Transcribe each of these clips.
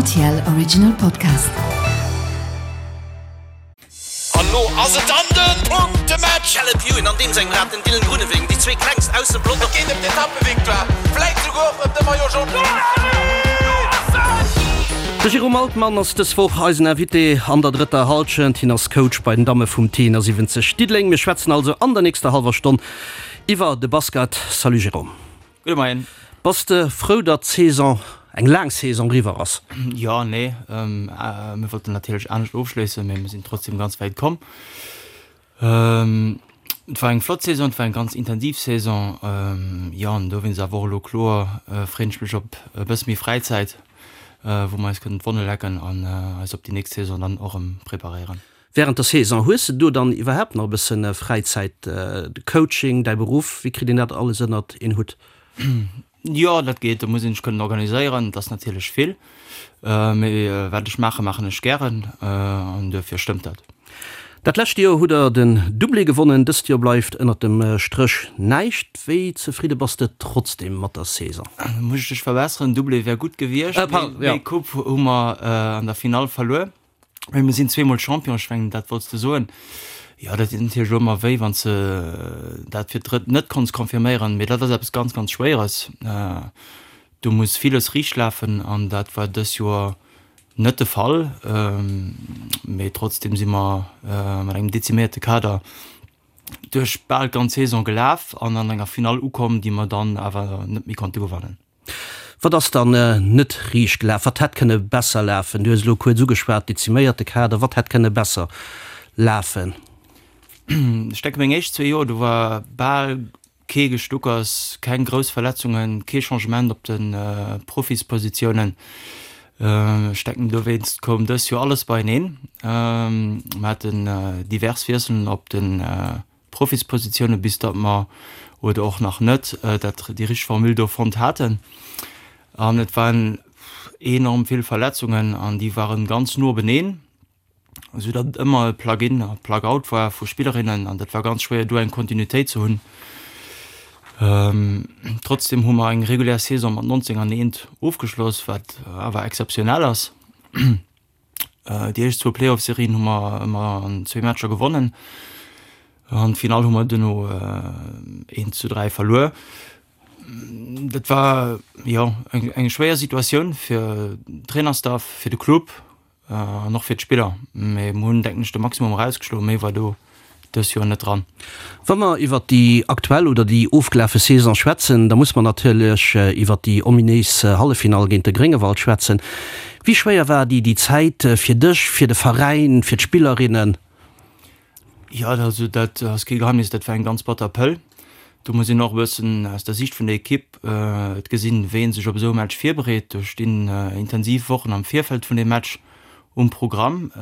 RTL Original Podcast. An lo ass et dann den Punktematch! Caleb Ewan an deem sengem Rad den Dylan Groenewegen, déi zwee klengst aus dem Pelotong. Et geet ëm d'Etappevictoire, vläit souguer och ëm de Maillot Jaune. De Jérôme Altmann ass dës Woch eisen Invité an der drëtter Hallschent. Hien ass Coach bei den Damme vum T71 Diddeleng. Mir schwätzen also an der nächster hallwer Stonn iwwer de Basket. Salut Jérôme. Gudde Moien. Bass de frou, datt d'Saison, eng laang Saison, eriwwer ass? Jo, nee. Mir wollten natierlech anescht ofschléissen, mee mir sinn trotzdem ganz wäit komm. Et war eng flott Saison, et war eng ganz intensiv Saison. Jo, an dowéinst awer och elo kloer freeën ech mech op e bësse méi Fräizäit, wou mer eis kënnen d'Wonne lecken an eis op déi nächst Saison dann och erëm preparéieren. Während der Saison, hues de do dann iwwerhaapt nach e bësse Fräizäit? De Coaching, däi Beruff, wéi kritt een dat alles ënnert een Hutt? Jo, dat geet, do muss een sech kënnen organiséieren. Et ass natierlech vill, mee wat ech maachen, maachen ech gären an duerfir stëmmt dat. Dat lescht Joer hutt der den Doublé gewonnen, dëst Joer bleift ënnert dem Stréch näischt. Wéi zefridde bass de trotzdem mat der Saison? Muss ech dech verbesseren, Doublé wär gutt gewiescht, mee Coupe hu mer an der Finall verluer. Mee mir sinn zweemol Champion, ech mengen dat wollts de soen. Jo, dat deet natierlech elo ëmmer wéi, wann s de dat fir d'drëtt net konns confirméieren. Mee dat ass eppes ganz, ganz Schwéieres. Do muss villes riicht lafen an dat war dës Joer net de Fall. Mee trotzdeem si mer mat engem deziméierte Kader duerch bal d'ganz Saison gelaf an an enger Finall ukomm, déi mer dann awer net méi konnte gewannen. Wat ass dann net riicht gelaf? Wat hätt kënne besser lafen? Du hues elo kuerz ugeschwat, deziméierte Kader. Wat hätt kënne besser lafen? Ech denke meng éischt zwee Joer, do war bal kee Gestuckers, keng grouss Verletzungen, kee Changement op de Profispositiounen. Ech denken dowéinst koum dës Joer alles beieneen. Mer haten divers Wiesselen op de Profispositioune bis datt mer, oder och nach net, dat déi richteg Formule do fonnt haten. An et waren enorm vill Verletzungen an déi waren ganz no beneen, esou datt et ëmmer e Plug-in a Plug-out war vu Spillerinnen an dat war ganz schwéier do eng Kontinuitéit ze hunn. Trotzdem hu mer eng regulär Saison mat 19 an eent ofgeschloss, wat awer exzeptionell ass. Déi éischt zwou Playoff-Serien hu mer ëmmer an zwee Matcher gewonnen. An d'Finall hu mer duerno 1 zu 3 verluer. Dat war jo eng eng schwéier Situatioun fir den Trainerstaff, fir de Club an och fir d'Spiller. Mee mer hunn, denken ech, de Maximum erausgeschloen. Méi war do dës Joer net dran. Wa mer iwwert déi aktuell oder déi ofgelafe Saison schwätzen, da muss mer natierlech iwwert déi ominéis Halleffinall géint de Gréngewald schwätzen. Wéi schwéier war déi déi Zäit fir dech, fir de Veräin, fir d'Spillerinnen? Jo, also dat ass kee Geheimnis, dat war eng ganz batter Pëll. Do muss een och e bëssen aus der Siicht vun der Ekipp et gesinn, wéi ee sech op esou e Match virbereet. Do stinn intensiv Wochen am Virfeld vun deem Match Um Programm.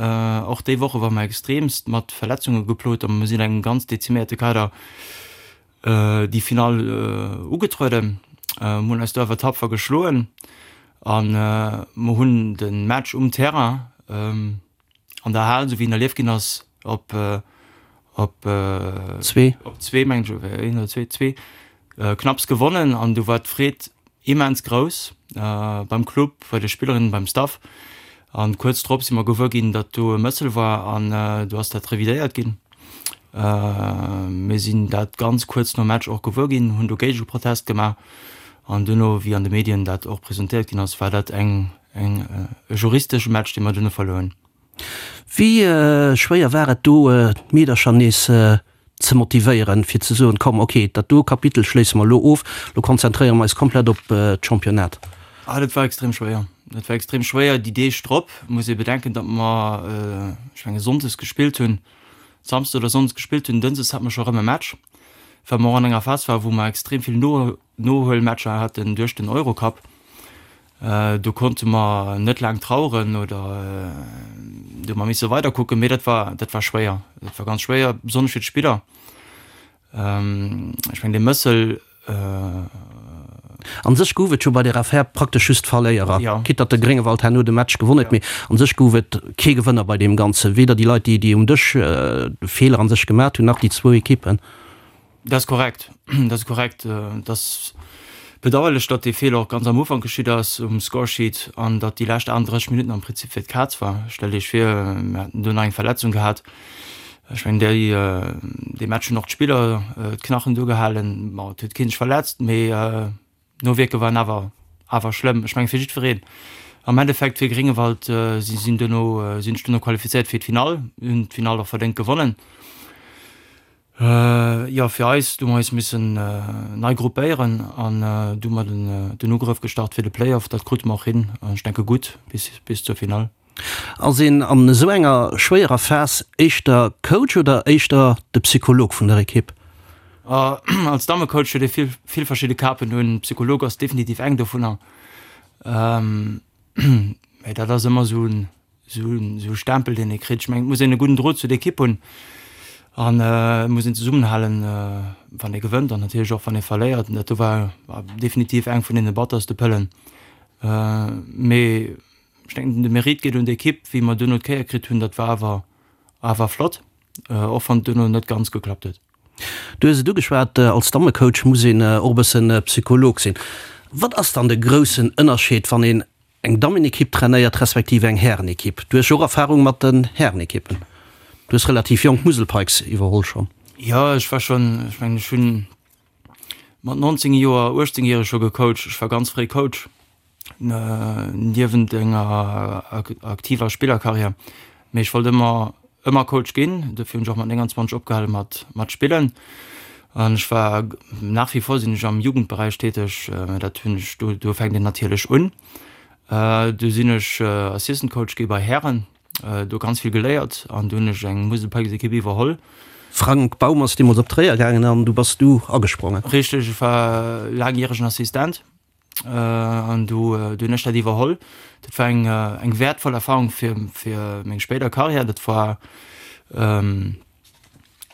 Och déi Woche ware mer extreemst mat Verletzunge geplot a mir sinn engem ganz deziméierte Kader déi Finall ugetrueden. Mir hunn eis do awer tapfer geschloen a mer hunn de Match um Terrain an der Hal, esou wéi en erlieft ginn ass, op op zwee, op zwee mengen ech, een oder zwee, zwee knapps gewonnen an du war d'Freed immens grouss beim Club, bei de Spillerinnen, beim Staff an kuerz drop si mer gewuer ginn, datt do e Mëssel war an do ass dat revidéiert ginn. Mir sinn dat ganz kuerz nom Match och gewuer ginn, hunn do Géigeprotest gemaach an duerno, wéi an de Medien dat och presentéiert ginn ass, war dat eng eng e juristesche Match, dee mer duerno verluer hunn. Wéi schwéier war et do, d'Meedercher nees ze motivéieren, fir ze soen, komm, ok, dat do Kapitel schléisse mer elo of, elo konzentréiere mer eis komplett op d'Championnat? Ah, dat war extrem schwéier. Dat war extrem schwéier déi Deeg drop. Muss ee bedenken, datt mer, ech menge sonndes gespillt hunn, samsdes oder sonndes gespillt hunn, dënschdes hate mer scho erëm e Match, well mer och an enger Phas waren, wou mer extrem vill Nohuelmatcher haten duerch den Eurocup. Do konnte mer net laang traueren oder do hu mer misse weider kucken, mee dat war, dat war schwéier. Dat war ganz schwéier, besonnesch fir d'Spiller. Ech mengen dee Mëssel. An sech gouf et jo bei där Affär praktesch just Verléierer, quitte datt de Gréngewald herno de Match gewonn huet, mee an sech gouf et kee Gewënner bei deem Ganzen, weder déi Leit, déi um Dësch de Feeler an sech gemat hunn, nach déi zwou Ekippen. Dat ass korrekt, dat ass korrekt. Et ass. Bedauerlech, datt dee Feeler och ganz am Ufank geschitt ass um Scoresheet an datt déi lescht 38 Minutten am Prinzip fir d'Kaz war. Stellt Iech vir, mir hätten do nach eng Verletzung gehat. Ech mengen, déi, dee Match hunn och d'Spiller d'Knachen do gehalen. Bon, et huet kee sech verletzt, mee d'Nowierke waren awer, awer schlëmm. Ech mengen, fir jiddwereen. Am Endeffekt fir Gréngewald, si sinn duerno, sinn sech duerno qualifizéiert fir d'Finall, hunn d'Finall och verdéngt gewonnen. Jo, fir eis, du hu mer eis missen nei gruppéieren an du hu mer den Ugrëff gestart fir de Playoff. Dat krute mer och hin an ech denke gutt bis zur Finall. Ass een an esou enger schwéierer Phas éischter Coach oder éischter de Psycholog vun der Ekipp? Als Dammecoach huet ee vill, vill verschidde Kapen un. Psycholog ass definitiv eng dovunner. Mä dat ass ëmmer esou en Esou e Stempel, deen ee kritt. Ech mengen, et muss een e gudden Drot zu der Ekipp hunn an et muss een zesummenhalen, wann ee gewënnt an natierlech och, wann ee verléiert. An dat do war definitiv eng vun deene batterste Pëllen. Mee ech denken, de Mérite geet un d'Ekipp, wéi mer duerno d'Kéier kritt hunn. Dat war awer, awer flott, och wann et duerno net ganz geklappt huet. Du hues et ugeschwat, als Dammecoach muss een och e bëssen Psycholog sinn. Wat ass dann de groussen Ënnerscheed, wann een Eng Dammenekipp trainéiert, respektiv eng Härenekipp. Du hues jo och Erfahrung mat den Härenekippen. Du hues relativ jonk d'Musel Pikes iwwerholl schonn. Jo, ech war schonn, ech mengen ech hunn mat 19 Joer, 18 järeg scho gecoacht. Ech war ganz fréi Coach, niewent enger aktiver Spillerkarriär. Mee ech wollt ëmmer ëmmer Coach ginn, dofir hunn ech och mat 29 opgehale mat mat spillen. An ech war, nach wie vor sinn ech am Jugendberäich täteg, dat hunn ech, do do fänkt een natierlech un. Du sinn ech Assistant Coach gi bei Hären, do ganz vill geléiert an du hunn ech eng Musel Pikes Ekipp iwwerholl. Frank Baum ass deemools op Tréier gaangen an du bass du agesprongen. Richteg, ech war laangjäregen Assistent. An du hunn ech dat iwwerholl. Dat war eng eng wäertvoll Erfahrung fir fir meng spéider Karriär. Dat war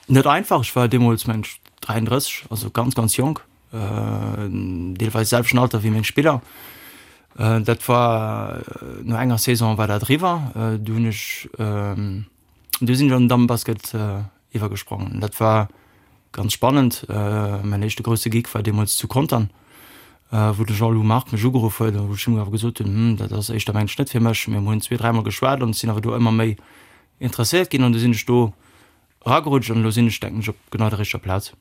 net einfach. Ech war deemools mengen ech 33, also ganz ganz jonk, deelweis selwechten Alter wéi meng Spiller. Dat war no enger Saison war dat eriwwer. Du hunn ech du sinn ech an den Dammenbasket iwwergesprongen. Dat war ganz spannend. Mäin éischte grousse Gig war deemools zu Contern, wou de Jean-Lou Margue mech ugeruff huet a wou ech him awer gesot hunn, Hm, dat ass éischter mengen ech net fir mech. Mee mir hunn zwee, dräimol geschwat an ech sinn awer do ëmmer méi interesséiert ginn an du sinn ech do eragerutscht an elo sinn ech, denken ech, op genau der richteger Plaz.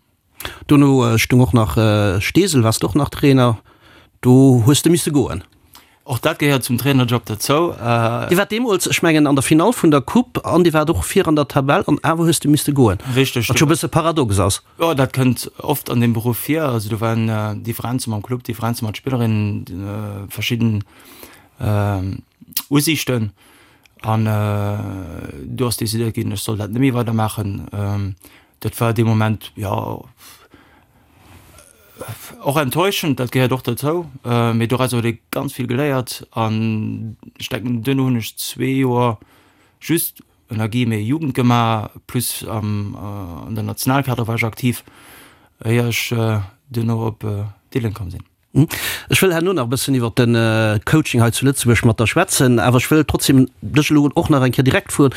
Dono stung och nach Steesel, waars de och nach Trainer, do hues de misse goen. Och dat gehéiert zum Trainerjob derzou. Dir waart deemools, ech mengen, an der Finall vun der Coupe an dir waart och vir an der Tabell an awer hues de misste goen. Richteg. Wat scho e bësse paradox ass. Jo, dat kënnt oft an deem Beruff vir. Also do waren Differenze mam Club, Differenze mat Spillerinnen, verschidden Usiichten an do ass decidéiert ginn, ech soll dat net méi weidermaachen. Dat war dee Moment, jo, och enttäuschend, dat gehéiert och dozou, mee doraus huet ee ganz vill geléiert an ech denken, duerno hunn ech zwee Joer just ënner Guillemets Jugend gemaach, plus am an der Nationalkader war ech aktiv, éier ech duerno op Diddeleng komm sinn. Ech wëll herno nach e bëssen iwwer de Coaching hei zu Lëtzebuerg mat der schwätzen, awer ech wëll trotzdem dech elo och nach eng Kéier direkt froen,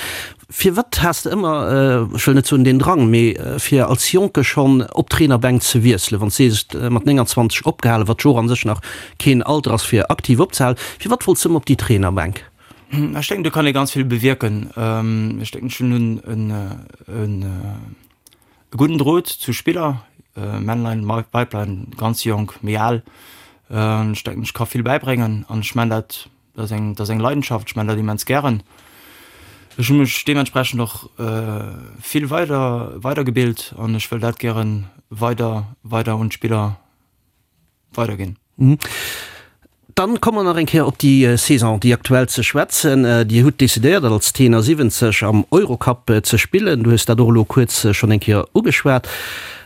Firwat has de ëmmer, ech wëll net soen deen Drang, mee fir als Jonke schonn op d'Trainerbänk ze wiesselen, wann s de sees, mat 29 opgehalen, wat jo och a sech nach keen Alter ass fir aktiv opzehalen, firwat wollts de ëmmer op déi Trainerbänk? Ech denken, do kann ee ganz vill bewierken. Ech denken, ech hunn en. E gudden Drot zu Spiller, Männlein, Weiblein, ganz jonk, méi al. Ech denken, ech ka vill bäibréngen an ech man dat, dat ass eng, dat ass eng Leidenschaft, ech man dat immens gären. Ech hu mech deementsprechend och vill weider, weidergebilt an ech wëll dat gären weider, weider un d'Spiller weiderginn. Dann komme mer nach eng Kéier op déi Saison, déi aktuell, ze schwätzen. Dir hutt decidéiert, als Tenor 70 am Eurocup ze spillen. Du hues dat och elo kuerz schonn eng Kéier ugeschwat.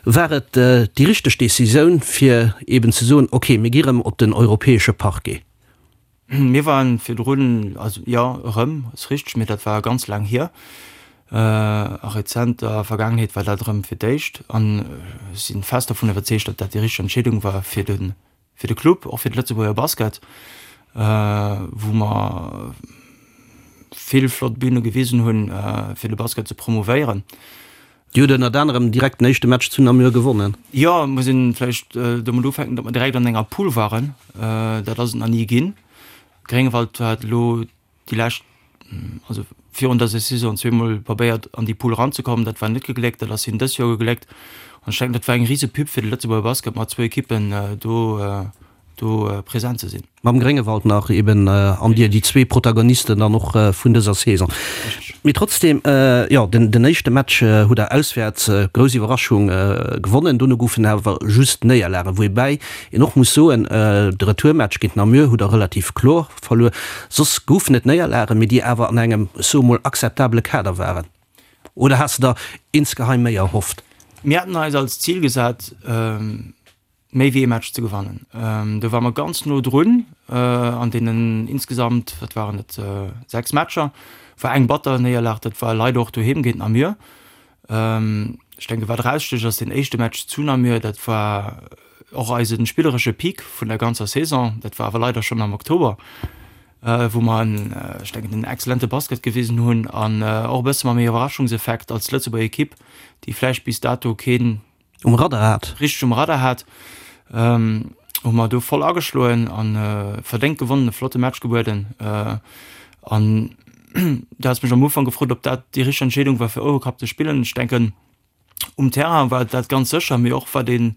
War et déi richteg Decisioun, fir eeben ze soen, okay, mir gi rëm op den europäesche Parquet? Mir waren virdrun, also jo, erëm, ass richteg, mee dat war ganz laang hier. A rezenter Vergaangenheet war dat erëm fir d'éischt. An ech si fest dovun iwwerzeegt, datt dat déi richteg Entscheedung war fir de, fir de Club, och fir de Lëtzebuerger Basket, wou mer vill flott Büne gewisen hunn, fir de Basket ze promouvéieren. Dir hutt ënnert anerem direkt den éischte Match zu Namur gewonnen. Jo, muss een vläicht domat ufänken, datt mer direkt an enger Pool waren. Dat ass et nach ni ginn. Gréngewald hat elo déi lescht, also virun dëser Saison zweemol probéiert an déi Pool eranzekommen. Dat war net gegléckt. Dat ass hinnen dës Joer gegléckt. An ech denken, dat war eng rise Pub fir de Lëtzebuerger Basket, mat zwou Ekippen do do present ze sinn. Mam Gréngewald nach eben an dir, déi zwee Protagonisten dann och vun dëser Saison. Mee trotzdem, jo, den éischte Match hutt der auswäerts, grouss Iwwerraschung, gewonnen. Dono goufen awer just Néierlagen, woubäi een och muss soen, de Retourmatch géint Namur hutt der relativ kloer verluer. Soss goufen et Néierlagen, mee déi awer an engem, ech soe mol, akzeptabele Kader waren. Oder has de der insgeheim méi erhofft? Mir haten eis als Zil gesat, méi wéi ee Match ze gewannen. Do ware mer ganz no drun an deenen insgesamt, wat waren et, 6 Matcher, war eng batter Néierlag, dat war leider och doheem géint Namur. Ech denke wat erausstécht ass deen éischte Match zu Namur, dat war och eise spilleresche Peak vun der ganzer Saison, dat war awer leider schonn am Oktober, wou mer en, ech denken en exzellente Basket gewisen hunn an och e bësse mam Iwwerraschungseffekt als Lëtzebuerger Ekipp, déi vläicht bis dato keen Um Radar hat. Richteg um Radar hat, hu mer do voll ageschloen a verdéngt gewonnen, e flotte Match gebueden. An du has mech am Ufank gefrot, ob dat déi richteg Entscheedung war fir Eurocup ze spillen. Ech denken, um Terrain war dat ganz sécher, mee och wat een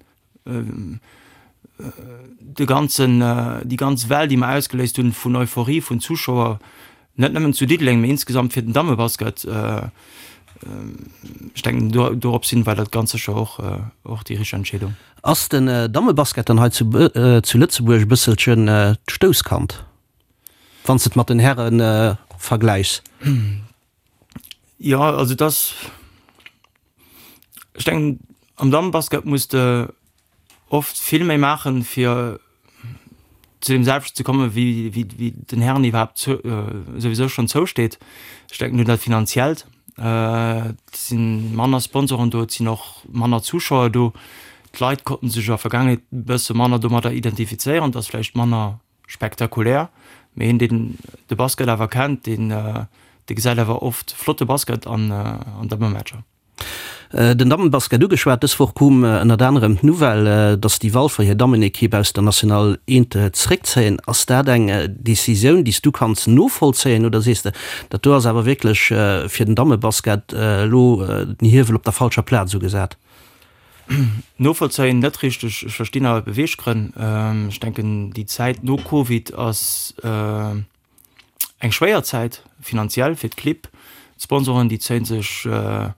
de ganzen, déi ganz Well, déi mer ausgeléist hunn vun Euphorie vun Zuschauer, net nëmmen zu Diddeleng, mee insgesamt fir den Dammebasket, ech denken do dorops hin war dat ganz sécher och och déi richteg Entscheedung. Ass den Dammebasket dann hei zu zu Lëtzebuerg e bësselchen d'Stouss-Kand, wann s de et mat den Häre vergläichs? Jo, also et ass, ech denken am Dammebasket muss de oft vill méi maachen, fir zu deem selwechten ze kommen, wéi, wéi, wéi den Hären iwwerhaapt zou, souwisou schonn zousteet. Ech denken un dat Finanziellt. Et si manner Sponsoren do, et sinn och manner Zuschauer do. D'Leit konnten sech a Vergaangenheet e bësse manner domadder identifizéieren, et ass vläicht manner spektakulär, mee een, deen de Basket awer kennt, deen, dee gesäit awer oft flotte Basket an, an Dammematcher. Den Dammenbasket ugeschwat, Dës Woch koum ënnert anerem d'Nouvelle, datt déi Walfer hir Dammenekipp aus der National Eent zeréckzéien. Ass dat eng Decisioun, déi s du kanns novollzéien oder sees de, dat do ass awer wierklech fir den Dammebasket elo den Hiewel op der falscher Plaz ugesat? Novollzéien net richteg. Ech verstinn awer d'Beweeggrënn. Ech denken, déi Zäit no Covid ass. Eng schwéier Zäit finanziell fir d'Clibb. D'Sponsoren, déi zéie sech e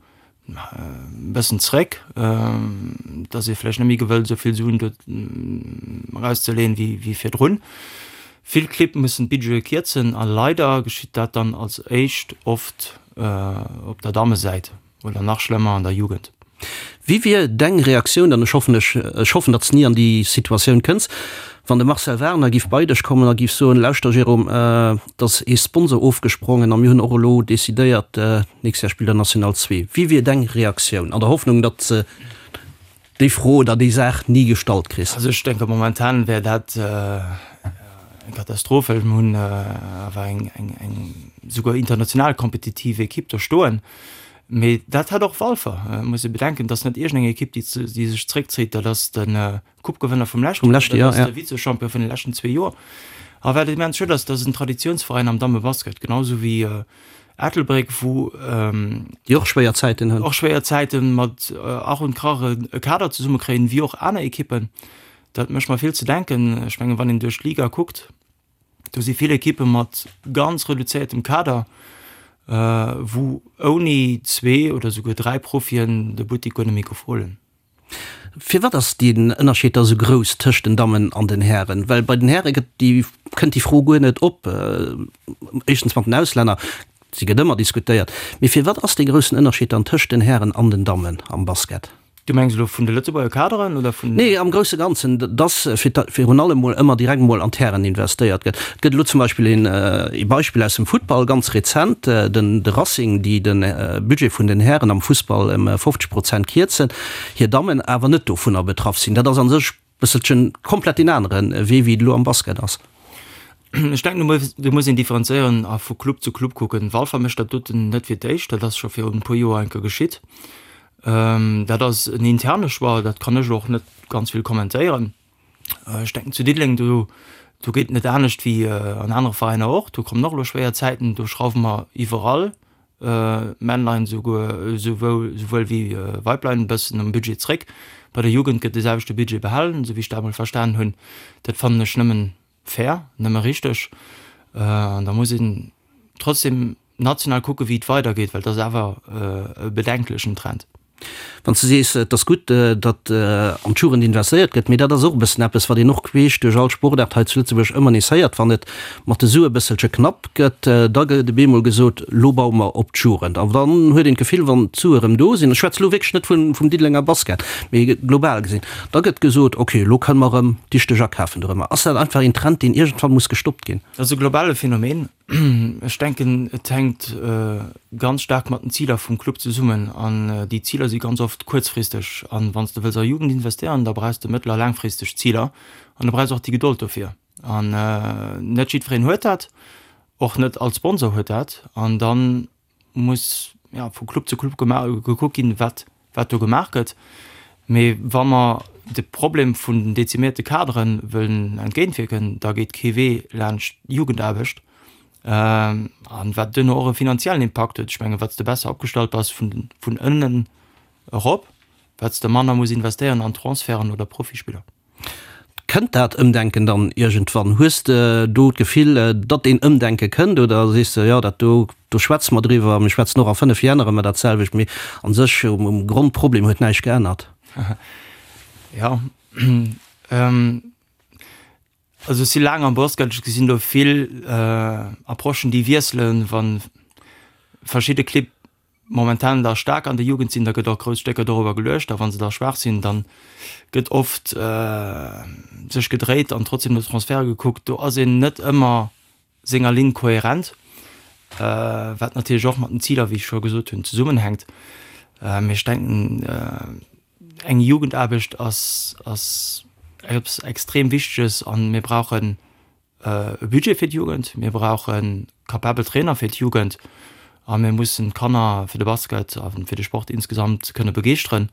bëssen zréck. Et ass ee vläicht net méi gewëllt, esou vill Suen do erauszeleeën, wéi virdrun. Vill Clibb mussen d'Budgete kierzen a leider geschitt dat dann als éischt oft op der Dammesäit. Oder nach schlëmmer an der Jugend. Wéi wier deng Reaktioun, an ech hoffen ech ech hoffen datt s ni an déi Situatioun kënns, wann de Marcel Wagner giff bei dech kommen a giff soen, lauschter Jérôme, et ass ee Sponsor ofgesprongen a mir hunn och elo decidéiert, nächst Jahr spillt der National 2. Wéi wier deng Reaktioun, an der Hoffnung datt s déi Fro oder déi Saach ni gestallt kriss? Also ech denke momentan wär dat eng Katastroph, well mir hunn awer eng eng eng souguer international kompetitiv Ekipp do stoen. Mee dat hat och Walfer. Et muss ee bedenken, et ass net iergendeng Ekipp, déi déi sech zréckzéit, dat ass de Coupe-Gewënner vum leschten Joer, dat ass de Vize-Champion vun de leschten zwee Joer. A wat immens schued ass, dat ass en Traditiounsveräin am Dammebasket, genau esou wéi Ettelbréck, wou Déi och schwéier Zäiten hunn. Och schwéier Zäiten mat Ach und Krach e Kader zesummekréien, wéi och aner Ekippen. Dat mécht mer vill ze denken. Ech mengen, wann een duerch d'Liga kuckt, do si vill Ekippe mat ganz reduzéiertem Kader, wou ouni zwee oder souguer dräi Profien de Buttik guer net méi gouf huelen. Firwat ass deen Ënnerscheed da sou grouss tëscht den Dammen an den Hären? Well bei den Häre gëtt déi, kënnt déi Fro guer net op. Éischtens mat den Auslänner, se gëtt ëmmer diskutéiert. Mee firwat ass dee groussen Ënnerscheed dann tëscht den Hären an den Dammen am Basket? Du mengs elo vun de Lëtzebuerger Kaderen oder vun? Nee, am grousse Ganzen, dass fir virun allem mol ëmmer direkt mol an d'Hären investéiert gëtt. Et gëtt elo zum Beispill een ee Beispill aus dem Futtball, ganz rezent, den de Racing, déi de Budget vun den Hären am Fussball ëm 50 Prozent kierzen, hir Dammen awer net dovunner betraff sinn. Dat ass a sech bësselchen komplett deen anere Wee, wéi et elo am Basket ass. Ech denken, do muss een differenzéieren a vu Club zu Club kucken. Walfer mécht dat doten net fir d'éischt, dat ass scho virun e puer Joer eng Kéier geschitt. Dat ass en interne Choix, dat kann ech och net ganz vill kommentéieren. Ech denken zu Diddeleng, do do geet et net anescht wéi an anere Veräiner och. Do kommen och elo schwéier Zäiten, do schrauwe mer iwwerall, Männlein esouguer esouwuel esouwuel wéi Weiblein e bëssen um Budget zréck. Bei der Jugend gëtt de selwechte Budget behalen, esou wéi ech dat emol verstanen hunn. Dat fannen ech nëmmen fair, nëmme richteg. An da muss een trotzdem national kucken, wéi et weidergeet, well et ass awer e bedenklechen Trend. Wann s de sees, et ass gutt, datt an d'Jugend investéiert gëtt, mee dat ass och e bëssen eppes, wat een och queesch duerch all Sportaart hei zu Lëtzebuerg ëmmer nees héiert, wann et mat de Sue e bësselche knapp gëtt, da gëtt op eemol gesot, lo baue mer op d'Jugend. An dann huet een d'Gefill, wann d'Sue erëm do sinn, ech schwätze lo wierklech net vum Diddelenger Basket, mee global gesinn, da gëtt gesot, okay, lo kënne mer erëm dichteg akafen dorëmmer. Ass dat einfach een Trend, deen iergendwann muss gestoppt ginn? Dat ass e globale Phänomen. Ech denken, et hänkt ganz staark mat den Ziler vum Club zesummen. An déi Ziler si ganz oft kuerzfristeg. An wann s de wëlls a Jugend investéieren, da brauchs de mëttel a laangfristeg Ziler. An du brauchs och déi Gedold dofir. An net jiddwereen huet dat, och net all Sponsor huet dat. An dann muss ja, vu Club zu Club gekuckt ginn, wat, wat do gemaach gëtt. Mee wa mer de Problem vun den dezimierte Kadere wëllen entgéintwierken, da geet kee Wee laanscht d'Jugendaarbecht. An wat duerno och e finanziellen Impakt huet. Ech mengen, wat s de besser opgestallt bass vun, vun ënnen erop, wat s de manner muss investéieren an Transferten oder Profispiller. Kënnt dat Ëmdenken dann iergendwann? Hues de do d'Gefill, datt een Ëmdenke kënnt oder sees de, jo dat do, do schwätze mer driwwer, mir schwätzen och a 5 Jänner ëmmer dat selwecht, mee a sech um Grondproblem huet näischt geännert? Jo, also ech si laang am Basket, ech gesinn do vill Approchen déi wiesselen, wa verschidde Clibb momentan da staark an der Jugend sinn, da gëtt och grouss Stécker dorobber geluecht, a wa se da schwaach sinn, da gëtt oft sech gedréit an trotzdem no Transferte gekuckt. Do ass een net ëmmer senger Linn kohärent, wat natierlech och mat den Ziler, wéi ech scho gesot hunn, zesummenhänkt. Mee ech denken, eng Jugendaarbecht ass ass eppes extrem Wichteges a mir brauchen e Budget fir d'Jugend, mir brauche capabel Trainer fir d'Jugend a mir mussen d'Kanner fir de Basket a fir de Sport insgesamt kënne begeeschteren.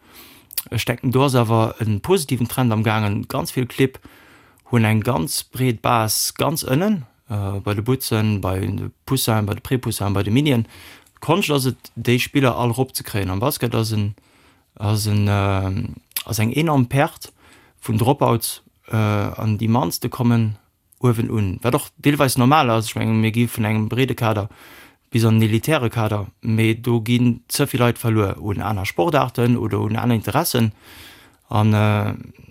Ech denken, do ass awer e positiven Trend am gaangen. Ganz vill Clibb hunn eng ganz breet Base ganz ënnen, bei de Butzen, bei de Poussinen, bei de Prépoussinen, bei de Minien. D'Konscht ass et, déi Spiller all eropzekréien. Am Basket ass en ass en ass eng enorm Perte vun Dropouts an déi mannste kommen uewen un, wat och deelweis normal ass. Ech mengen, mir gi vun engem breede Kader bis an en elitäre Kader, mee do ginn ze vill Leit verluer un aner Sportaarten oder un aner Interessen. An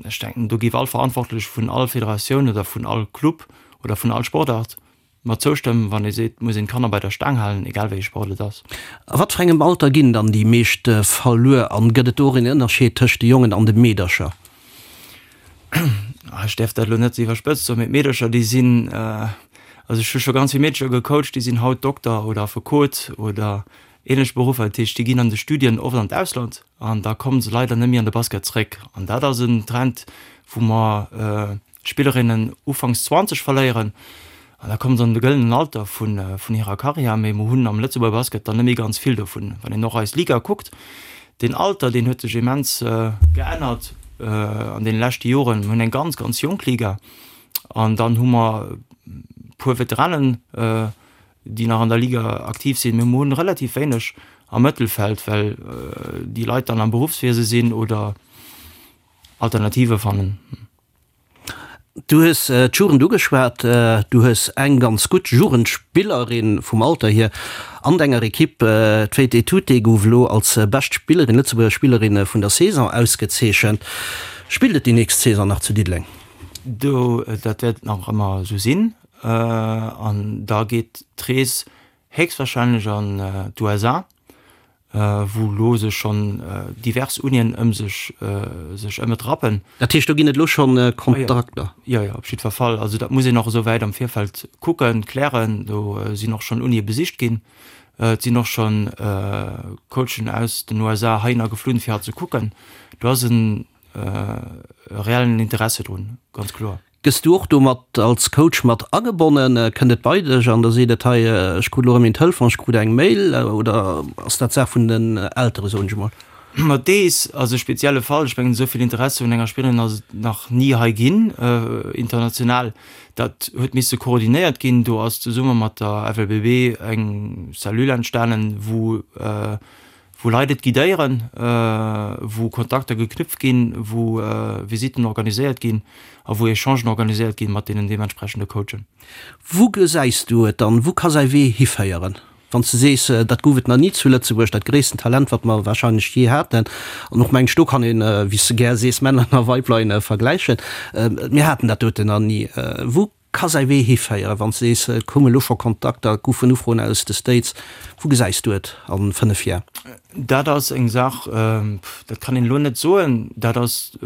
ech denken, do géif all Verantwortlech vun all Federatioun oder vun all Club oder vun all Sportart Mer zoustëmmen, wann ee seet, et muss een d'Kanner bei der Staang halen, egal wéi ee Sport et ass. A wat fir engem Alter ginn dann déi meescht verluer an gëtt et do och een Ënnerscheed tëscht de Jongen an de Meedercher? Ech däerf dat elo net ze iwwerspëtzt soen, mee d'Meedercher déi sinn, also ech hu scho ganz vill Meedercher gecoacht, déi sinn haut Dokter oder Affekot oder ähnlech Beruffer. Dat heescht, déi ginn an de Studien oft an d'Ausland an da komme se leider net méi an de Basket zréck. An dat ass en Trend, wou mer Spillerinnen ufanks 20 verléieren an da kommen se an de gëllenen Alter vun hirer Karriär. Mee mer hunn am Lëtzebuerger Basket dann net méi ganz vill dovun. Wann een och eis Liga kuckt, deen Alter, deen huet sech immens geännert an deene leschte Joren. Mer hunn eng ganz, ganz jonk Liga an dann hu mer e puer Veteranen, déi nach an der Liga aktiv sinn. Mee mer hunn relativ wéineg am Mëttelfeld, well déi Leit dann am Beruffswiese sinn oder Alternative fannen. Du hues d'Jugend ugeschwat. Du hues eng ganz gutt Jugendspillerin vum Alter hier an denger Ekipp. D'Faith Etute gouf elo als bescht Spillerin, Lëtzebuerger Spillerin vun der Saison ausgezeechent. Spillt et déi nächst Saison nach zu Diddeleng? Do, dat wäert nach ëmmer esou sinn. An da geet d'Rees héchstwahrscheinlech an d'USA. wou elo sech schonn divers Unien ëm sech sech ëm et rappen. Dat heescht, do ginn et elo schonn Kontrakter? Jo, jo, op jiddwer Fall. Also dat muss een och esou wäit am Virfeld kucken, klären. Do sinn och schonn Unie besicht ginn. Et sinn och schonn Coachen aus den USA heihinner geflunn, fir hat ze kucken. Do ass e reellen Interesse drun, ganz kloer. Gëss du och do mat als Coach mat agebonnen? Kënnt et bei dech an da seet et, hei ech krut elo erëm een Telefon, ech krut eng Mail oder ass dat Saach vun den Eltere soen ech emol? Ma dees ass e spezielle Fall. Ech mengen, esou vill Interesse un enger Spillerin ass et nach ni hei ginn, international. Dat huet misse koordinéiert ginn. Do ass zesumme mat der FLBB eng Cellule entstanen, wou wou Leit et guidéieren, wou Kontakter geknüpft ginn, wou Visitten organiséiert ginn a wou Echangen organiséiert ginn mat deenen deementsprechende Coachen. Wou gesäis du et dann? Wou ka säi Wee hiféieren? Wann s de sees, dat gouf et nach ni zu Lëtzebuerg, dat gréissten Talent, wat mer warscheinlech jee haten, an och mengen ech, do kann een, wéi s de gär sees, Männer a Weiblein vergläichen, mir haten dat doten nach ni. Wou ka säi Wee hiféieren, wann s de sees, et koume lo scho Kontakter, et goufen Ufroen aus de States, wou gesäis du et a 5 Jar? Dat ass eng Saach, dat kann een elo net soen, dat ass,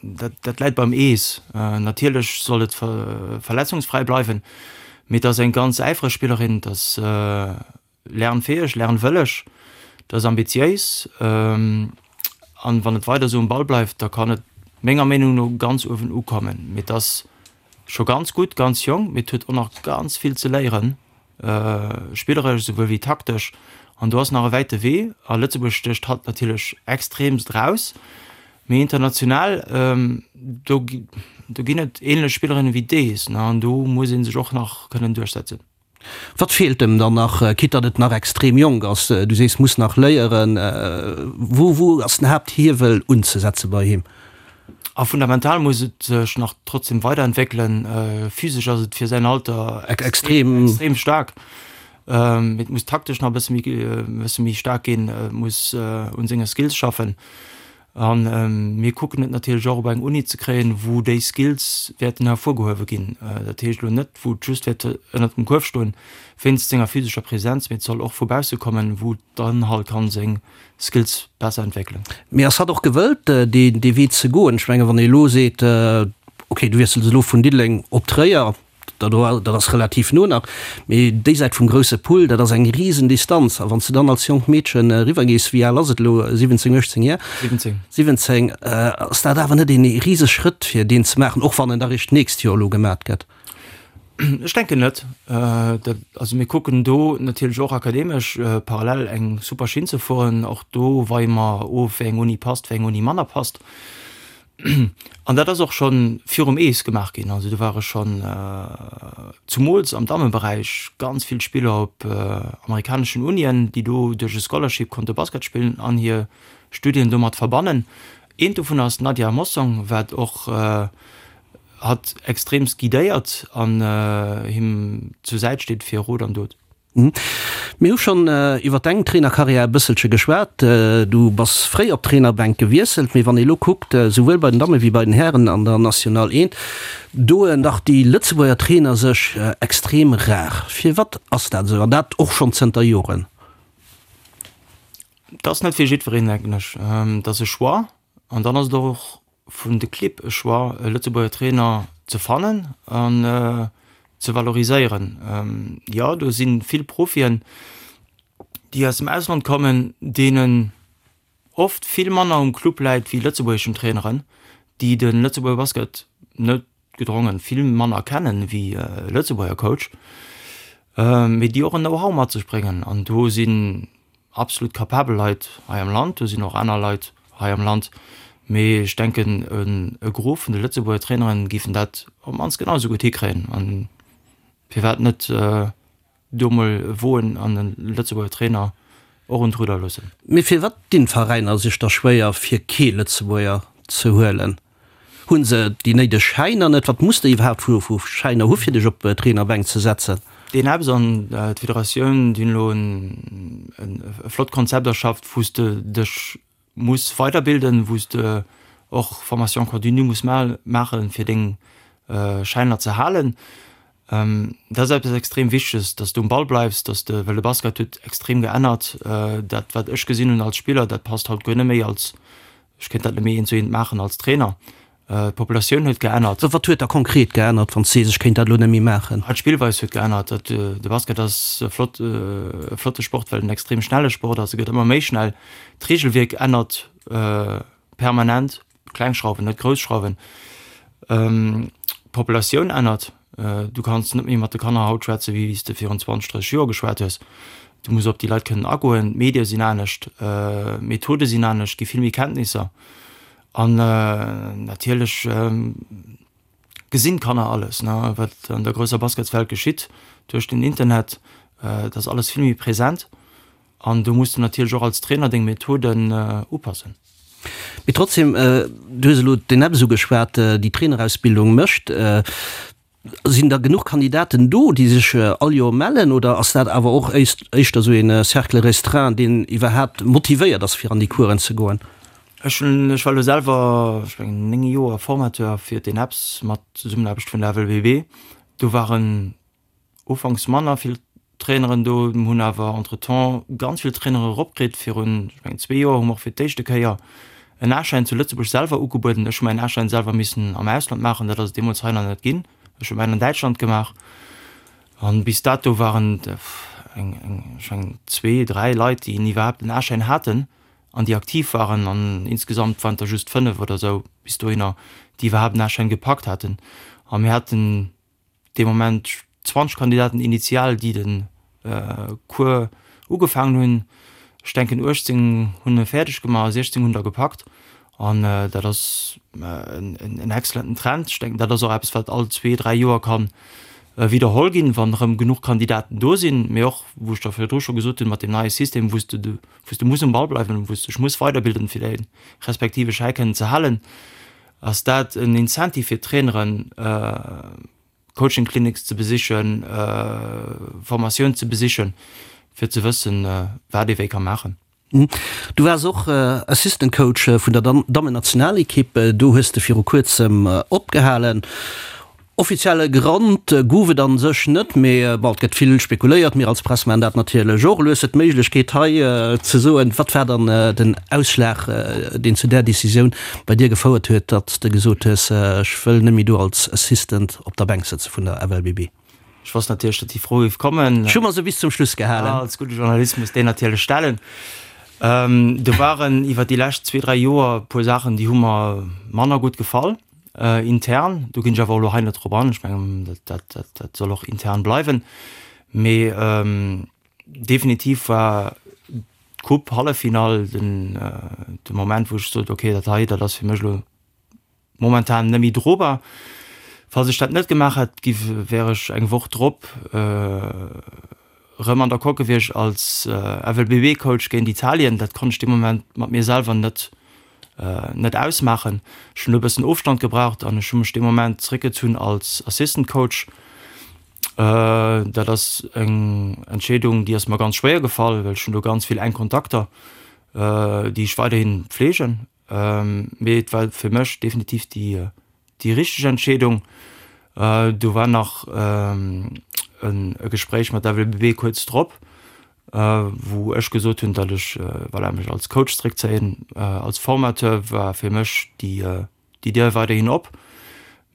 dat dat läit beim Ees. Natierlech soll et verletzungsfräi bleiwen, mee et ass eng ganz äifreg Spillerin, et ass lernfäeg, lernwëlleg, et ass ambitiéis an wann et weider esou um Ball bleift, da kann et menger Meenung no ganz uewen ukommen. Mee et ass scho ganz gutt, ganz jonk, mee et huet och nach ganz vill ze léieren, spilleresch esouwuel wéi taktesch an do ass nach e wäite Wee a Lëtzebuerg stécht hatt natierlech extreemst eraus. Mee international, do do ginn et ähnlech Spillerinnen wéi dees, ne, an do muss ee sech och nach kënnen duerchsetzen. Wat feelt em dann nach, quitte datt et nach extrem jonk ass? Du sees, muss nach léieren. Wou wou ass den Haapthiewel unzesetze bei him? A fundamental muss et sech nach trotzdem weiderentwéckelen. Physesch ass et fir säin Alter extrem extrem staark. Et muss taktesch nach e bësse méi e bësse méi staark ginn, muss un senge Skills schaffen. A mir kucken et natierlech och op eng Uni ze kréien, wou déi Skills wäerten hervorgehuewe ginn. Dat heescht elo net, wou et just wäert ënnert dem Kuerf stoen, wéinst senger physescher Presenz, mee et soll och vu bausse kommen, wou dann halt kann seng Skills besser entwéckelen. Mee ass hatt och gewëllt, dee Wee ze goen? Ech mengen, wann ee elo seet, okay, du wiessels elo vun Diddeleng op Tréier, Dat ass relativ no nach, mee déi Säit vum grousse Pull, dat ass eng risen Distanz. A wann s de dann als jonkt Meedchen eriwwer gees, wéi al ass et elo, 17, 18 Jar? 17. 17, ass dat awer net een rise Schrëtt fir deen ze maachen, och wann en da réischt d'nächst Joer elo gemat gëtt? Ech denken net. Dat, also mir kucken do natierlech och akademesch parallel eng super Schinn ze fueren. Och do weie mer of, wéi eng Uni passt, wéi eng Uni manner passt. An dat ass och scho virum Ees gemaach ginn. Also do ware schonn zumools am Dammeberäich ganz vill Spiller op amerikaneschen Unien, déi do duerch e Scholarship konnte Basket spillen an hir Studien domat verbannen. Eent dovun ass d'Nadia Mossong, wat och hatt extreemst guidéiert an him zur Säit steet fir Rot an Dot. Mir hu schonn iwwer deng Trainerkarriär e bësselche geschwat. Du bass fréi op d'Trainerbänk gewiesselt, mee wann ee lo kuckt, souwuel bei den Damme wéi bei den Hären an der National 1, doen dach déi Lëtzebuerger Trainer sech extrem rar. Firwat ass dat esou, an dat och schonn zënter Joren? Dat ass net fir jiddwereen, denken ech. Dat ass e Choix an dann ass et och vun de Clibb e Choix, e Lëtzebuerger Trainer ze fannen an ze valoriséieren. Jo, do si vill Profien, déi aus dem Ausland kommen, deenen oft vill manner um Club läit wéi lëtzebuergeschen Traineren, déi de Lëtzebuerger Basket net gedrongen vill manner kennen wéi e Lëtzebuerger Coach, mee déi och en Know-how mat sech bréngen. An do sinn absolut kapabel Leit hei am Land, do sinn och aner Leit hei am Land, mee ech denken e Gros vun de Lëtzebuerger Traineren géifen dat op d'mannst genau esou gutt hikréien. An firwat net do mol woen an e Lëtzebuerger Trainer och un d'Rudder loossen? Mee firwat dinn d'Veräiner sech da schwéier fir kee Lëtzebuerger ze huelen? Hunn se déi néideg Schäiner net? Wat muss de iwwerhaapt vu vu Schäiner hu fir dech op d'Trainerbänk ze setzen? Deen Ebbs an d'Federatioun, déi hunn elo en e flott Konzept erschafft, wou s de dech muss weiderbilden, wou s de och Formation continue muss maachen, fir deng Schäiner ze halen. Dat ass eppes extrem Wichteges, dass du um Ball bleifs, dass de, well de Basket huet extrem geännert. Dat wat ech gesinn hunn als Spiller, dat passt haut guer net méi als Ech kéint dat net méi eent zu eent maachen als Trainer. D'Populatioun huet geännert. Wat huet da konkret geännert, wann s de sees, ech kéint dat elo net méi maachen? D'Spillweis huet geännert. De Basket ass e flott, e flotte Sport, well en extrem schnelle Sport ass. E gëtt ëmmer méi schnell. D'Reegelwierk ännert permanent, kleng Schrauwen, net grouss Schrauwen. D'Populatioun ännert. Du kanns net méi mat de Kanner haut schwätzen, wéi s de virun 20, 30 Joer geschwat hues. Du muss op déi Leit kënnen agoen. D'Medie sinn anescht, d'Methode sinn anescht, gi vill méi Kenntnisser. An natierlech gesinn d'Kanner alles, ne, wat an der grousser Basketswelt geschitt duerch den Internet. Et ass alles vill méi present. An do muss de natierlech och als Trainer deng Methoden upassen. Mee trotzdem, du hues elo d'ENEPS ugeschwat, déi Trainerausbildung mécht. Sinn da genuch Kandidaten do, déi sech all Joer mellen, oder ass dat awer och éischter esou ee Cercle restreint, deen iwwerhaapt motivéiert ass, fir an déi Coursen ze goen? Ech hunn, ech war elo selwer, ech mengen, 9 Joer Formateur fir d'ENEPS mat Zesummenaarbecht vun der FLBB. Do waren Ufanks manner vill Traineren do, mir hunn awer entretemps ganz vill Trainere eropkritt. Virun, ech mengen, zwee Joer hu mer och fir d'éischte Kéier en A-Schäin zu Lëtzebuerg selwer ugebueden. Ech hu mäin A-Schäin selwer missen am Ausland maachen, dat ass et deemools hei nach net ginn. Ech hu mäin an Däitschland gemaach an bis dato waren et eng, eng, ech mengen, zwee, dräi Leit, déi iwwerhaapt en A-Schäin haten an déi aktiv waren an insgesamt waren et der just fënnef oder esou bis dohinner, déi iwwerhaapt en A-Schäin gepackt haten. A mir haten dee Moment 20 Kandidaten initial, déi de Cours ugefaangen hunn. Ech denken 18 hunn e fäerdeg gemaach a 16 hunn der gepackt. An dat ass en excellenten Trend. Ech denken, dat ass och eppes, wat all zwee, dräi Joer ka widderholl ginn, wann erëm genuch Kandidaten do sinn. Mee och, wou ech der virdru scho gesot hunn, mat deem neie System, wou s de wou s de muss um Ball bleiwen, wou s de dech muss weiderbilden, fir däi respektive Schäi kënnen ze halen. Ass dat en Incentive fir d'Traineren, Coaching Clinics ze besichen, Formatioun ze besichen, fir ze wëssen, wat ee wéi ka maachen? Du waars och Assistant Coach vun der Dammennationalekipp. Do hues de viru kuerzem opgehalen. Offizielle Grond gouf et an sech net, mee bon, et gëtt vill spekuléiert, mir als Press maachen dat natierlech och. Elo hues de d'Méiglechkeet hei ze soen, wat war dann den Ausschlag, deen zu där Decisioun bei dir gefouert huet, datt s de gesot hues, ech wëll net méi do als Assistant op der Bänk sëtze vun der FLBB? Ech wosst natierlech, datt déi Fro géif kommen. Ech hu mer se bis zum Schluss gehalen. Als gudde Journalist muss deen natierlech stellen. Do waren iwwer déi lescht zwee, dräi Joer e puer Saachen, déi hu mer manner gutt gefall. Intern, do ginn ech awer och elo hei net drop an, ech mengen, dat, dat, dat soll och intern bleiwen. Mee definitiv war d'Coupe Halleffinall den, de Moment, wou ech sot, okay, dat hei, dat ass fir mech elo momentan net méi drobar. Falls ech dat net gemaach hätt, giff, wär ech eng Woch drop erëm an der Coque gewiescht als FLBB-Coach géint Italien. Dat konnt ech dee Moment mat mir selwer net net ausmaachen. Ech hunn do e bëssen Ofstand gebraucht an ech hu mech dee Moment zeréckgezunn als Assistant Coach. Dat ass eng Entscheedung, déi ass mer ganz schwéier gefall, well ech hunn do ganz vill enk Kontakter, déi ech weiderhi pfleegen. Mee et war fir mech definitiv déi déi richteg Entscheedung. Do war nach e Gespréich mat der FLBB kuerz drop, wou ech gesot hunn, datt ech voilà, mech als Coach zeréckzéien. Als Formateur war fir mech déi déi Dier weiderhin op.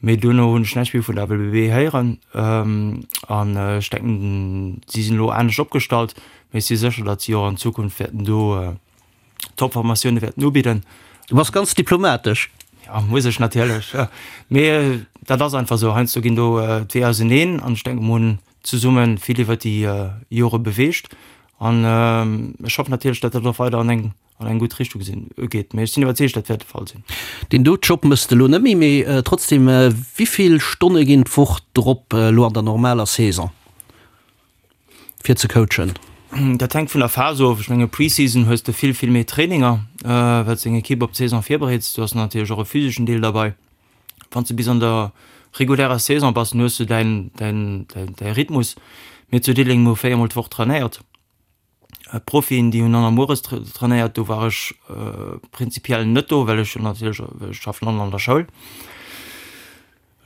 Mee duerno hunn ech näischt méi vun der FLBB héieren. An ech denken, si sinn elo anescht opgestallt, mee ech si sécher, datt si och an Zukunft wäerten do Top-Formatioune wäerten ubidden. Du bass ganz diplomatesch. Ja, muss ech natierlech. Mee dat ass einfach esou. Heiansdo ginn do d'Weeër auseneen an ech denken, mer hunn zesumme vill iwwer déi Jore beweegt an ech hoffen natierlech, datt dat och weider an eng an eng gutt Richtung sinn geet. Mee ech sinn iwwerzeegt, dat wäert de Fall sinn. Deen do Job mëss de elo net méi, mee trotzdem, wéi vill Stonne ginn d'Woch drop elo an der normaler Saison? Fir ze coachen? Dat hänkt vun der Phas of. Ech menge Pre-Season hues de vill, vill méi Traininger, well s deng Ekipp op d'Saison virbereets. Du has natierlech och e physeschen Deel derbei. Wann s de bis an der regulärer Saison bass, dann hues du däin, däin, däi Rhythmus. Mir zu Diddeleng hu 4 mol d'Woch trainéiert. D'Profien, déi hunn dann mueres trainéiert. Do war ech prinzipiell net do, well ech jo natierlech, ech schaffen an an der Schoul.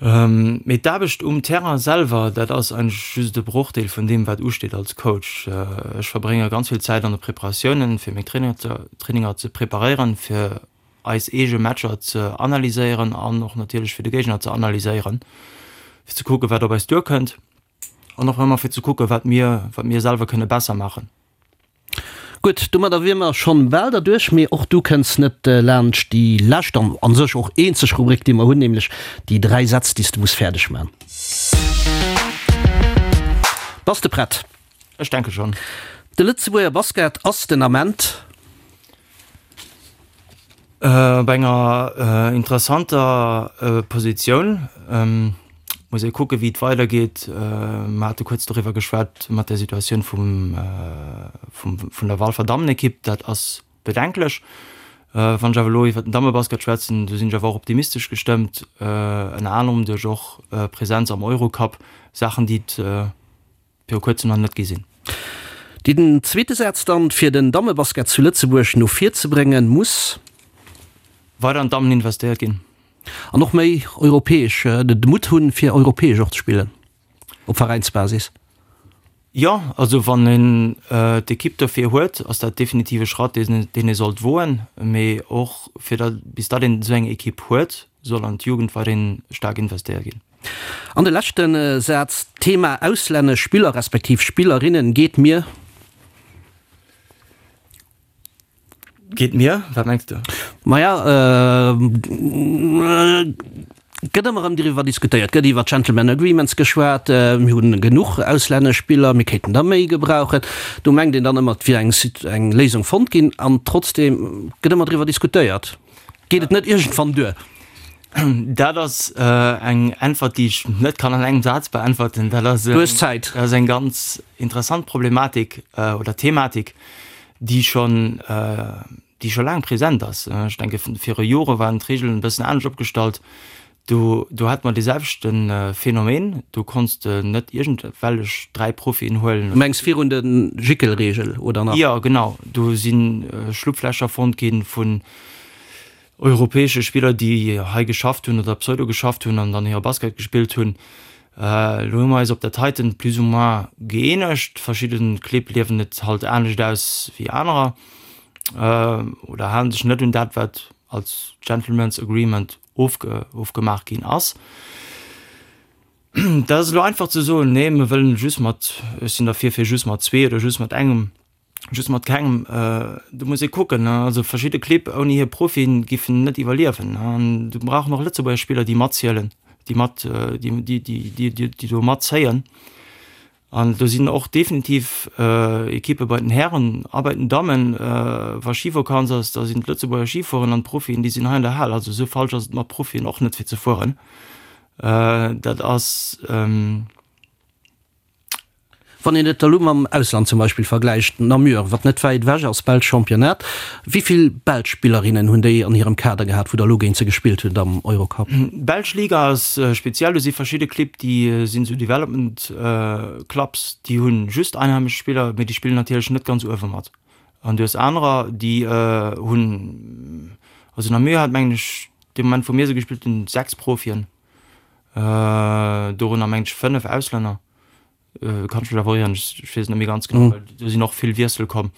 Mee d'Aarbecht um Terrain selwer, dat ass eigentlech just e Brochdeel vun deem, wat usteet als Coach. Ech verbrénge ganz vill Zäit an de Preparatiounen, fir meng Traininger ze preparéieren, fir eis eege Matcher ze analyséieren an och natierlech fir de Géigner ze analyséieren, fir ze kucken, wat op eis duerkënnt an och ëmmer fir ze kucken, wat mir, wat mir selwer kënne besser maachen. Gutt, domadder wier mer schonn bal derduerch, mee och du kënns net laanscht déi lescht an an sech och eenzeg Rubrik, déi mer hunn, nämlech déi 3 Sätz, déi s de muss fäerdeg man. Bass de prett? Ech denke schonn. De Lëtzebuerger Basket ass den Ament. Op enger interessanter Positioun. Muss ee kucke wéi et weidergeet. Mer hate kuerz doriwwer geschwat mat der Situatioun vum vun der Walfer Dammenekipp. Dat ass bedenklech. Wann ech awer elo iwwer den Dammebasket schwätzen, do sinn ech awer och optimistesch gestëmmt, ënner anerem duerch och Presenz am Eurocup, Saachen déi et viru kuerzem nach net gi sinn. Den zweete Saz dann, fir den Dammebasket zu Lëtzebuerg no vir ze bréngen, muss. Weider an d'Dammen investéiert ginn. An och méi europäesch, de Mutt hunn, fir europäesch och ze spillen, op Veräinsbasis. Jo, also wann een d'Ekipp dofir huet, ass dat definitiv e Schratt, deen ee sollt woen. Mee och fir datt, bis datt een esou eng Ekipp huet, soll an d'Jugend weiderhin staark investéiert ginn. An de leschte Saz, D'Thema auslännesch Spiller respektiv Spillerinnen geet mir. Geet mir? Wat mengs de? Maja, gëtt ëmmer erëm driwwer diskutéiert, gëtt iwwer Gentlemen Agreements geschwat, mir hunn genuch auslännesch Spiller, mir kéinten der méi gebrauchen. Do mengt een dann ëmmer, et wier eng Léisung fonnt ginn an trotzdeem gëtt ëmmer driwwer diskutéiert. Geet et net iergendwann duer? Dat ass eng Äntwert, déi ech net kann an engem Saz beäntwerten. Dat ass, Du hues Zäit. Dat ass eng ganz interessant Problematik oder Thematik, déi schonn, déi scho laang present ass. Ech denke viru Jore waren d'Reegelen e bëssen anescht opgestallt. Do, do hate mer dee selwechte Phänomen. Do konns de net iergendwellech 3 Profien huelen. Du mengs virun der Jickelreegel oder nach? Jo, genau. Do si Schlupflächer fonnt gi vun europäesche Spiller, déi hei geschafft hunn oder pseudo geschafft hunn an dann hire Basket gespillt hunn. Elo hu mer eis op dat heiten plus ou moins gëeenegt. Verschidde Clibb liewen et halt anescht aus wéi anerer oder halen sech net un dat, wat als Gentlemen's Agreement ofge ofgemaach ginn ass. Dat ass elo einfach ze soen, nee, mir wëllen just mat, ech sinn derfir fir just mat zwee oder just mat engem. Just mat kengem, do muss ee kucken. Also verschidde Clibb ouni hir Profien giffen net iwwerliewen. An du brauchen och Lëtzebuerger Spiller, déi matzielen, déi mat, déi, déi, déi do matzéien. An do sinn och definitiv Ekippe bei den Hären a bei den Dammen. Wa Schivakanz ass, da sinn d'Lëtzebuerger Schifueren an d'Profien, déi sinn hei an der Hal. Also esou falsch ass et mat Profien och net fir ze fueren. Dat ass. Wann een et elo mam Ausland zum Beispill vergläicht, Namur, wat net wäit ewech ass, belscht Championnat, wéi vill belsch Spillerinnen hunn déi an hirem Kader gehat, wou der elo géint se gespillt hutt am Eurocup? D'belsch Liga ass speziell, do si verschidde Clibb, déi sinn esou Development Clubs, déi hu just einheimesch Spiller, mee déi spillen natierlech net ganz uewe mat. An du hues anerer, déi hunn, also Namur hat mengen ech dee Moment wou mir se gespillt hunn, 6 Profien, dorënner mengen ech 5 Auslänner. Kann ech mech awer ieren, ech weess et net méi ganz genau, well do sinn och vill Wiessel komm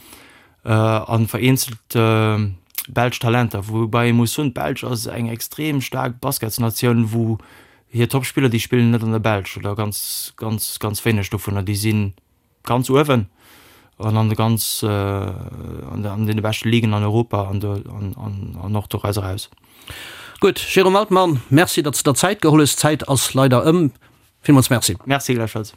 an vereenzelt belsch Talenter, woubäi ee muss soen, d'Belsch ass eng extrem staark Basketsnatioun, wou hir Topspiller, déi spillen net an der Belsch oder ganz, ganz, ganz wéineg dovunner, déi si ganz uewen an an de ganz an deene beschte Ligen an Europa an do an och doraus eraus. Gutt, Jérôme Altmann, Merci, datt s de der Zäit geholl hues. D'Zäit ass leider ëm. Villmools Merci. Merci gläichfalls.